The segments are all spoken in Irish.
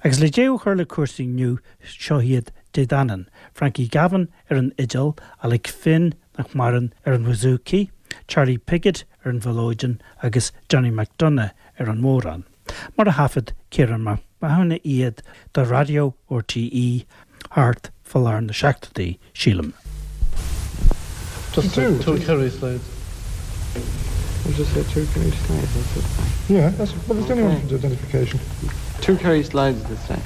Agus le deireadh a chur le cúrsaí inniu, seo iad Dé Danann, Frankie Gavin ar an fhidil, Alec Finn, nach maireann, ar an bhouzouki, Charlie Piggott ar an mhiolóidean agus Johnny McDonagh ar an mbodhrán. Mar a thaifead Ciarán Mac Mathúna iad do Raidió RTÉ thart fá lár na seachtóidí, sílim. Just two Kerry slides. We'll just say two Kerry slides, that's it. Yeah, that's, well, there's only one for identification. Two Kerry slides this time.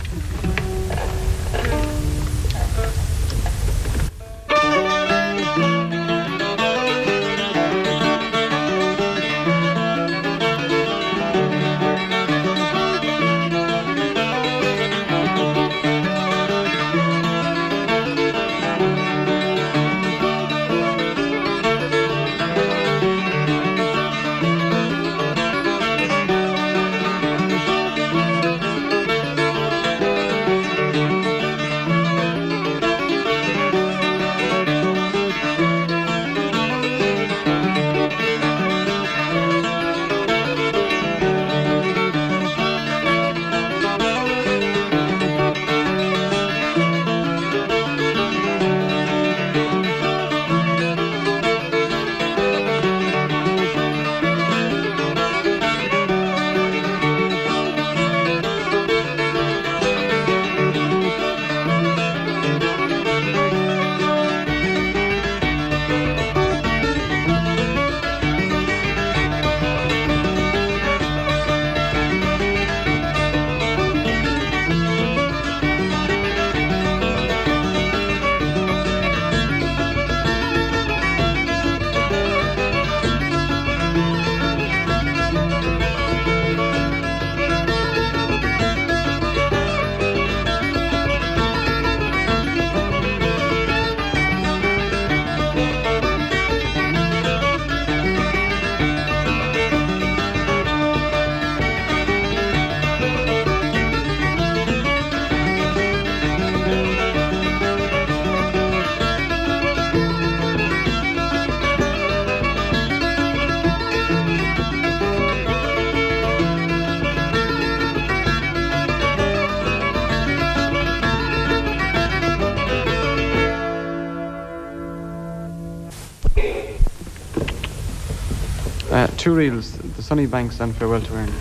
Two reels, The Sunny Banks and Farewell to Erin.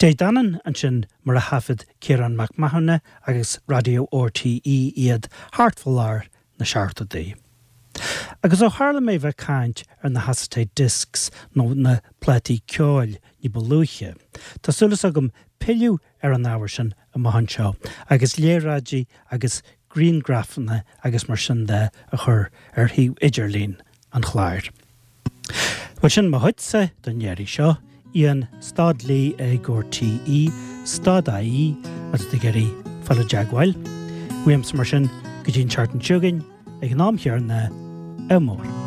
Dé Danann ansin mar a thaifead Ciarán Mac Mathúna agus Raidió RTÉ iad thart fá lár na seachtóidí. Agus ó tharla mé bheith caint ar na hacetate discs nó na plátaí ceoil ní ba luaithe, tá súil agam pilleadh ar an ábhar sin amach anseo agus léaráidí agus griangrafanna agus mar sin de a chur ar shuíomh idirlín an chláir. Bhuel sin mo chuidse don iarraidh seo, Ian stad Lee ag RTÉ stad IE má tá tú ag iarraidh fáil i dteagmháil. Uaimse mar sin go dtí an tseachtain seo chugainn ag an am chéanna, ádh mór.